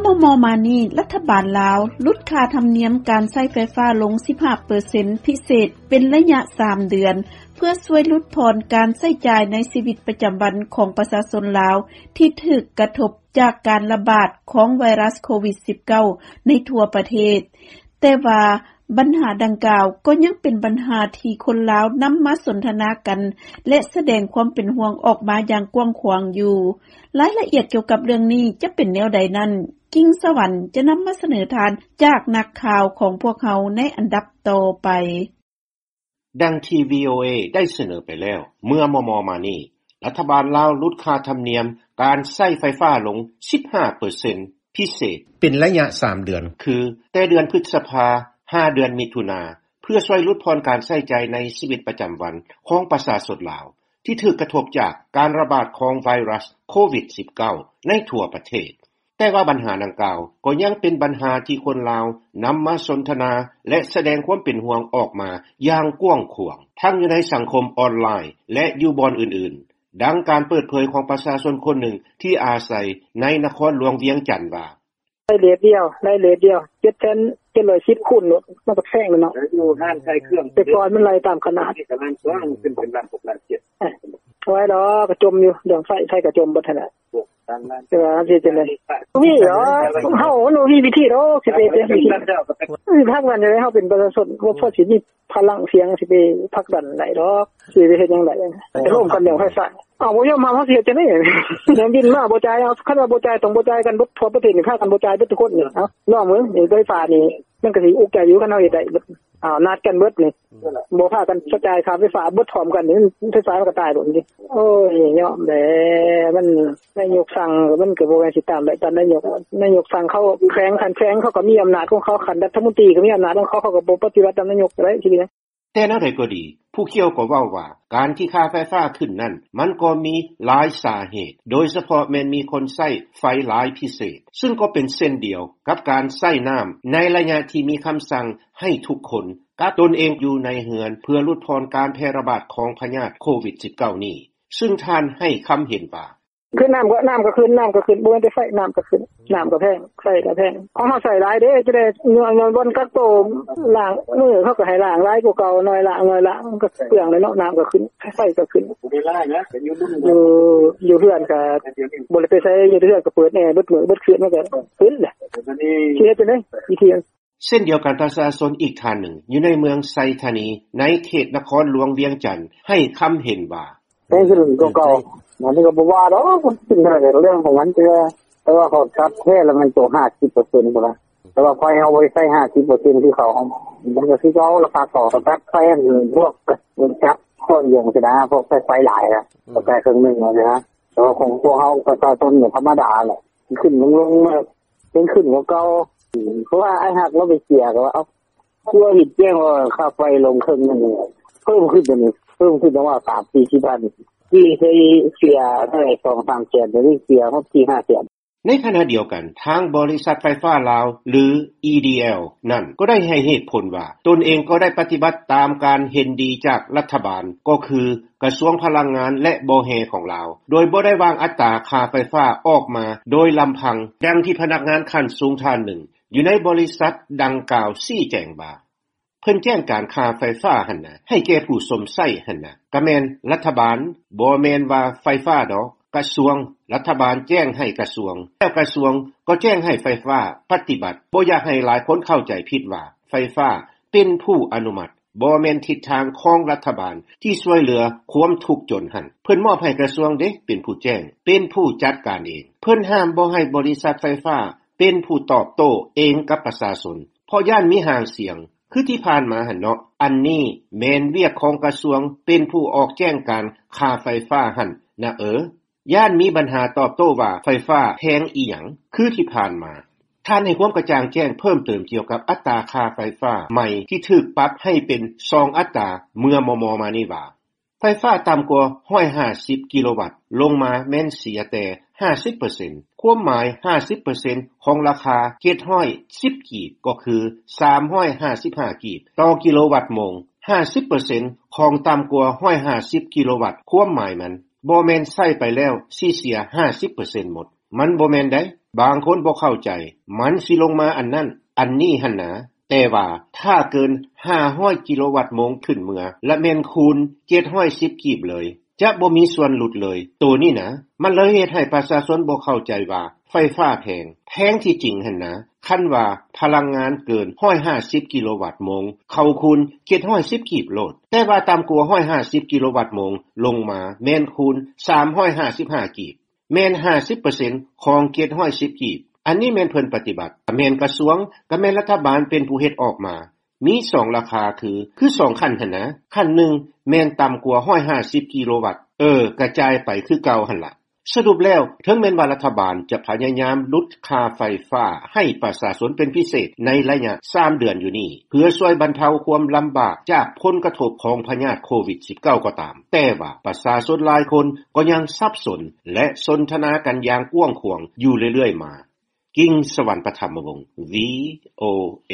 ມໍ່ໆມານີ້ ລັດຖະບານລາວຫຼຸດຄ່າທຳນຽມການໃຊ້ໄຟຟ້າລົງ ສິບຫ້າເປີເຊັນພິເສດ ເປັນໄລຍະສາມເດືອນ ເພື່ອຊ່ວຍຫຼຸດຜ່ອນການໃຊ້ຈ່າຍໃນຊີວິດປະຈຳວັນຂອງປະຊາຊົນລາວ ທີ່ຖືກກະທົບຈາກການລະບາດຂອງໄວຣັສໂຄວິດ-19 ໃນທົ່ວປະເທດ. ແຕ່ວ່າບັນຫາດັ່ງກ່າວກໍຍັງເປັນບັນຫາທີ່ຄົນລາວນຳມາສົນທະນາກັນ ແລະ ສະແດງຄວາມເປັນຫ່ວງອອກມາຢ່າງກວ້າງຂວາງຢູ່. ລາຍລະອຽດກ່ຽວກັບເລື່ອງນີ້ຈະເປັນແນວໃດນັ້ນ ກິ່ງສະຫວັນຈະນຳມາສະເໜີທ່ານຈາກນັກຂ່າວຂອງພວກເຮົາໃນອັນດັບຕໍ່ໄປ. ດັ່ງທີ່ ວີໂອເອ ໄດ້ສະເໜີໄປແລ້ວ ເມື່ອມໍ່ໆມານີ້ ລັດຖະບານລາວຫຼຸດຄ່າທຳນຽມການໃຊ້ໄຟຟ້າລົງ ສິບຫ້າເປີເຊັນພິເສດ ເປັນໄລຍະສາມເດືອນ ຄືແຕ່ເດືອນພຶດສະພາ ຫາເດືອນມິຖຸນາ ເພື່ອຊ່ວຍຫຼຸດຜ່ອນການໃຊ້ຈ່າຍໃນຊີວິດປະຈຳວັນຂອງປະຊາຊົນລາວ ທີ່ຖືກກະທົບຈາກການລະບາດຂອງໄວຣັສໂຄວິດ-19 ໃນທົ່ວປະເທດ. ແຕ່ວ່າບັນຫາດັ່ງກ່າວກໍຍັງເປັນບັນຫາທີ່ຄົນລາວນຳມາສົນທະນາ ແລະ ສະແດງຄວາມເປັນຫ່ວງອອກມາຢ່າງກວ້າງຂວາງ ທັງຢູ່ໃນສັງຄົມອອນລາຍ ແລະ ຢູ່ບ່ອນອື່ນໆ, ດັ່ງການເປີດເຜີຍຂອງປະຊາຊົນຄົນໜຶ່ງທີ່ອາໄສໃນນະຄອນຫຼວງວຽງຈັນວ່າ: ໄດ້ເລດດຽວ ໄດ້ເລດດຽວ ເຈັດແສນເຈັດຮ້ອຍສິບຄູນໂລດ ມັນກໍແພງແລ້ວເນາະ ຢູ່ຮ້ານຂາຍເຄື່ອງ ແຕ່ກ່ອນມັນໄລ່ຕາມຂະໜາດ ນີ້ກໍລ້ານກວ່າ ມັນຂຶ້ນເປັນລ້ານຫົກລ້ານເຈັດ ເອີ ບໍ່ໄຫວດອກ ກໍຈົມຢູ່ ເລື່ອງໄຟ ໄຟກໍຈົມເບິດຫັ້ນແຫຼະ ແຕ່ວ່າເຮົາຊິເຮັດຈັ່ງໃດ ບໍ່ມີດອກ ເຮົາ ເຮົາບໍ່ມີວິທີດອກ ຊິໄປເຮັດຫຍັງ ພັກນັ້ນ ເຮົາເປັນປະຊາຊົນ ບໍ່ພໍຊິມີພະລັງສຽງ ຊິໄປຜັກດັນໄດ້ດອກ ຊິໄປເຮັດຫຍັງໄດ້ ໄປໂຮມກັນເລື່ອງໄຟຟ້າ ເອົາ ບໍ່ຍອມຮັບ ເຮົາຊິເຮັດຈັ່ງໃດ ແນມດິນມາບໍ່ຈ່າຍ ເອົາ ຄັນວ່າບໍ່ຈ່າຍ ຕ້ອງບໍ່ຈ່າຍກັນເບິດ ທົ່ວປະເທດນີ້ ພາກັນບໍ່ຈ່າຍເບິດທຸກຄົນນີ້ ເອົາ ລອງເບິ່ງ ໄຟຟ້ານີ້ ມັນກໍຊິອຸກໃຈຢູ່ ຄັນເຮົາເຮັດໄດ້ ເອົາ ນັດກັນເບິດນີ້ ບໍ່ພາກັນຈ່າຍຄ່າໄຟຟ້າເບິດພ້ອມກັນນີ້ ໄຟຟ້າມັນກໍຕາຍໂລດນີ້ ໂອ້ຍ ຍອມແຫຼະ ມັນ ນາຍົກສັ່ງ ມັນກໍບໍ່ແມ່ນຊິຕາມໄດ້ຕາມນາຍົກ ນາຍົກສັ່ງ ເຂົາແຂວງ ຂັ້ນແຂວງເຂົາກໍມີອຳນາດຂອງເຂົາ ຂັ້ນລັດຖະມົນຕີກໍມີອຳນາດຂອງເຂົາ ເຂົາກໍບໍ່ປະຕິບັດຕາມນາຍົກກໍໄດ້ ຊິເປັນຫຍັງ? ແຕ່ແນວໃດກໍດີ ຜູ້ກ່ຽວກໍເວົ້າວ່າ ການທີ່ຄ່າໄຟຟ້າຂຶ້ນນັ້ນ ມັນກໍມີຫຼາຍສາເຫດ ໂດຍສະເພາະແມ່ນມີຄົນໃຊ້ໄຟຫຼາຍພິເສດ ຊຶ່ງກໍເປັນເຊັ່ນດຽວກັບການໃຊ້ນ້ຳ ໃນໄລຍະທີ່ມີຄຳສັ່ງໃຫ້ທຸກຄົນກັກຕົນເອງຢູ່ໃນເຮືອນ ເພື່ອຫຼຸດຜ່ອນການແຜ່ລະບາດຂອງພະຍາດໂຄວິດ-19 ນີ້ ຊຶ່ງທ່ານໃຫ້ຄຳເຫັນວ່າ: ຄືນ້ຳກໍ ນ້ຳກໍຂຶ້ນ ນ້ຳກໍຂຶ້ນ ບໍ່ແມ່ນແຕ່ໄຟ ນ້ຳກໍຂຶ້ນ ນ້ຳກໍແພງ ໄຟກໍແພງ ຂອງເຮົາໃຊ້ຫຼາຍເດ້ ຈະໄດ້ຍ້ອນ ຍ້ອນບ່ອນກັກໂຕ ລ້າງມືເຂົາກໍໃຫ້ລ້າງຫຼາຍກວ່າເກົ່າ ໜ້ອຍລ້າງ ໜ້ອຍລ້າງ ມັນກໍເປືອງແຫຼະເນາະ ນ້ຳກໍຂຶ້ນ ໄຟກໍຂຶ້ນ ບໍ່ໄດ້ຫຼາຍນະ ກໍຢູ່ ຢູ່ເຮືອນກໍບໍ່ໄດ້ໄປໃສ ຢູ່ເຮືອນກໍເປີດແອເບິດມື້ເບິດຄືນ ມັນກໍຂຶ້ນແຫຼະ ຊິເຮັດຈັ່ງໃດ ວິທີ ເຊັ່ນດຽວກັນ ປະຊາຊົນອີກທ່ານໜຶ່ງ ຢູ່ໃນເມືອງໄຊທານີ ໃນເຂດນະຄອນຫຼວງວຽງຈັນ ໃຫ້ຄຳເຫັນວ່າ: ແພງຂຶ້ນກວ່າເກົ່າ ອັນນີ້ກໍບໍ່ວ່າດອກ ມັນຂຶ້ນເທົ່າໃດກໍເລື່ອງຂອງມັນ ແຕ່ວ່າ ແຕ່ວ່າເຂົາຕັດແທ້ລະແມ່ນໂຕຫ້າສິບເປີເຊັນພຸ້ນລະ ແຕ່ວ່າໄຟເຮົາບໍ່ໄດ້ໃຊ້ຫ້າສິບເປີເຊັນຄືເຂົາ ມັນກໍຄືເກົ່າລະ ພາກເຂົາຕັດໄຟ ພວກຈັກຂ້ອນຫຍັງຊີ້ນະ ພວກໃຊ້ໄຟຫຼາຍນະ ກໍໃຊ້ເຄິ່ງໜຶ່ງຊີ້ນະ ແຕ່ວ່າຂອງພວກເຮົາປະຊາຊົນນີ້ທຳມະດາແຫຼະ ຂຶ້ນລົງໆ ແລ້ວ ແພງຂຶ້ນກວ່າເກົ່າ ເພາະວ່າອ້າຍຮັກລາວໄປເສຍ ກໍວ່າ ເອົ້າ ຄືວ່າເຫັນແຈ້ງວ່າຄ່າໄຟລົງເຄິ່ງໜຶ່ງ ເພີ່ມຂຶ້ນ ເປັນ ເພີ່ມຂຶ້ນປະມານສາມສີ່ສິບພັນ ທີ່ເຄີຍເສຍເທົ່າໃດ ສອງສາມແສນ ດຽວນີ້ເສຍຮອດສີ່ຫ້າແສນ. ໃນຂະນະດຽວກັນ ທາງບໍລິສັດໄຟຟ້າລາວ ຫຼື ອີດີແອລ ນັ້ນ ກໍໄດ້ໃຫ້ເຫດຜົນວ່າ ຕົນເອງກໍໄດ້ປະຕິບັດຕາມການເຫັນດີຈາກລັດຖະບານ ກໍຄືກະຊວງພະລັງງານ ແລະ ບໍ່ແຮ່ຂອງລາວ ໂດຍບໍ່ໄດ້ວາງອັດຕາຄ່າໄຟຟ້າອອກມາໂດຍລຳພັງ, ດັ່ງທີ່ພະນັກງານຂັ້ນສູງທ່ານໜຶ່ງ ຢູ່ໃນບໍລິສັດດັ່ງກ່າວຊີ້ແຈງວ່າ ເພິ່ນແຈ້ງການຄ່າໄຟຟ້າຫັ້ນນະ ໃຫ້ແກ່ຜູ້ຊົມໃຊ້ຫັ້ນນະ ກະແມ່ນລັດຖະບານ, ບໍ່ແມ່ນວ່າໄຟຟ້າດອກ, ກະຊວງ, ລັດຖະບານແຈ້ງໃຫ້ກະຊວງ, ແລ້ວກະຊວງກໍແຈ້ງໃຫ້ໄຟຟ້າປະຕິບັດ. ບໍ່ຢາກໃຫ້ຫຼາຍຄົນເຂົ້າໃຈຜິດວ່າ ໄຟຟ້າເປັນຜູ້ອະນຸມັດ, ບໍ່ແມ່ນທິດທາງຂອງລັດຖະບານທີ່ຊ່ວຍເຫຼືອຄວາມທຸກຈົນຫັ້ນ. ເພິ່ນມອບໃຫ້ກະຊວງເດ້ເປັນຜູ້ແຈ້ງ, ເປັນຜູ້ຈັດການເອງ. ເພິ່ນຫ້າມບໍ່ໃຫ້ບໍລິສັດໄຟຟ້າເປັນຜູ້ຕອບໂຕ້ເອງກັບປະຊາຊົນ ເພາະຢ້ານມີຫາງສຽງ ຄືທີ່ຜ່ານມາຫັ້ນເນາະ. ອັນນີ້ແມ່ນວຽກຂອງກະຊວງເປັນຜູ້ອອກແຈ້ງການຄ່າໄຟຟ້າຫັ້ນນະເອີ. ຢ້ານມີບັນຫາຕອບໂຕ້ວ່າໄຟຟ້າແພງອີ່ຫຍັງ ຄືທີ່ຜ່ານມາ. ທ່ານໃຫ້ຄວາມກະຈ່າງແຈ້ງເພີ່ມເຕີມກ່ຽວກັບອັດຕາຄ່າໄຟຟ້າໃໝ່ທີ່ຖືກປັບໃຫ້ເປັນສອງອັດຕາເມື່ອມໍ່ໆມານີ້ວ່າ ໄຟຟ້າຕ່ຳກວ່າຮ້ອຍຫ້າສິບກິໂລວັດລົງມາແມ່ນເສຍແຕ່ຫ້າສິບເປີເຊັນ, ຄວາມໝາຍຫ້າສິບເປີເຊັນຂອງລາຄາເຈັດຮ້ອຍສິບກີບ ກໍຄືສາມຮ້ອຍຫ້າສິບຫ້າກີບຕໍ່ກິໂລວັດໂມງ, ຫ້າສິບເປີເຊັນຂອງຕ່ຳກວ່າຮ້ອຍຫ້າສິບກິໂລວັດ ຄວາມໝາຍມັນບໍ່ແມ່ນໃຊ້ໄປແລ້ວຊິເສຍຫ້າສິບເປີເຊັນໝົດ. ມັນບໍ່ແມ່ນໃດ໋. ບາງຄົນບໍ່ເຂົ້າໃຈ ມັນຊິລົງມາອັນນັ້ນ ອັນນີ້ຫັ້ນນາ. ແຕ່ວ່າຖ້າເກີນຫ້າຮ້ອຍກິໂລວັດໂມງຂຶ້ນເມືອ ລະແມ່ນຄູນເຈັດຮ້ອຍສິບກີບເລີຍ ຈະບໍ່ມີສ່ວນຫຼຸດເລີຍ. ໂຕນີ້ນະ ມັນເລີຍເຮັດໃຫ້ປະຊາຊົນບໍ່ເຂົ້າໃຈວ່າ ໄຟຟ້າແພງ. ແພງທີ່ຈິງຫັ້ນນາ ຄັນວ່າພະລັງງານເກີນຮ້ອຍຫ້າສິບກິໂລວັດໂມງ ເຂົາຄູນເຈັດຮ້ອຍສິບກີບໂລດ. ແຕ່ວ່າຕ່ຳກວ່າຮ້ອຍຫ້າສິບກິໂລວັດໂມງລົງມາ ແມ່ນຄູນສາມຮ້ອຍຫ້າສິບຫ້າກີບ. ແມ່ນຫ້າສິບເປີເຊັນຂອງເຈັດຮ້ອຍສິບກີບ. ອັນນີ້ແມ່ນເພິ່ນປະຕິບັດ. ກະແມ່ນກະຊວງ ກະແມ່ນລັດຖະບານເປັນຜູ້ເຮັດອອກມາ. ມີສອງລາຄາຄື ຄືສອງຂັ້ນຫັ້ນນະ. ຂັ້ນໜຶ່ງແມ່ນຕ່ຳກວ່າຮ້ອຍຫ້າສິບກິໂລວັດ. ເອີ ກະຈ່າຍໄປຄືເກົ່າຫັ້ນລະ. ສະຫຼຸບແລ້ວ ເຖິງແມ່ນວ່າລັດຖະບານຈະພະຍາຍາມຫຼຸດຄ່າໄຟຟ້າໃຫ້ປະຊາຊົນເປັນພິເສດໃນໄລຍະສາມເດືອນຢູ່ນີ້ ເພື່ອຊ່ວຍບັນເທົາຄວາມລຳບາກຈາກຜົນກະທົບຂອງພະຍາດໂຄວິດສິບເກົ້າກໍຕາມ, ແຕ່ວ່າປະຊາຊົນຫຼາຍຄົນກໍຍັງສັບສົນ ແລະ ສົນທະນາກັນຢ່າງກວ້າງຂວາງຢູ່ເລື້ອຍໆມາ. ກິ່ງສະຫວັນ ປະຖຳມະວົງ ວີໂອເອ.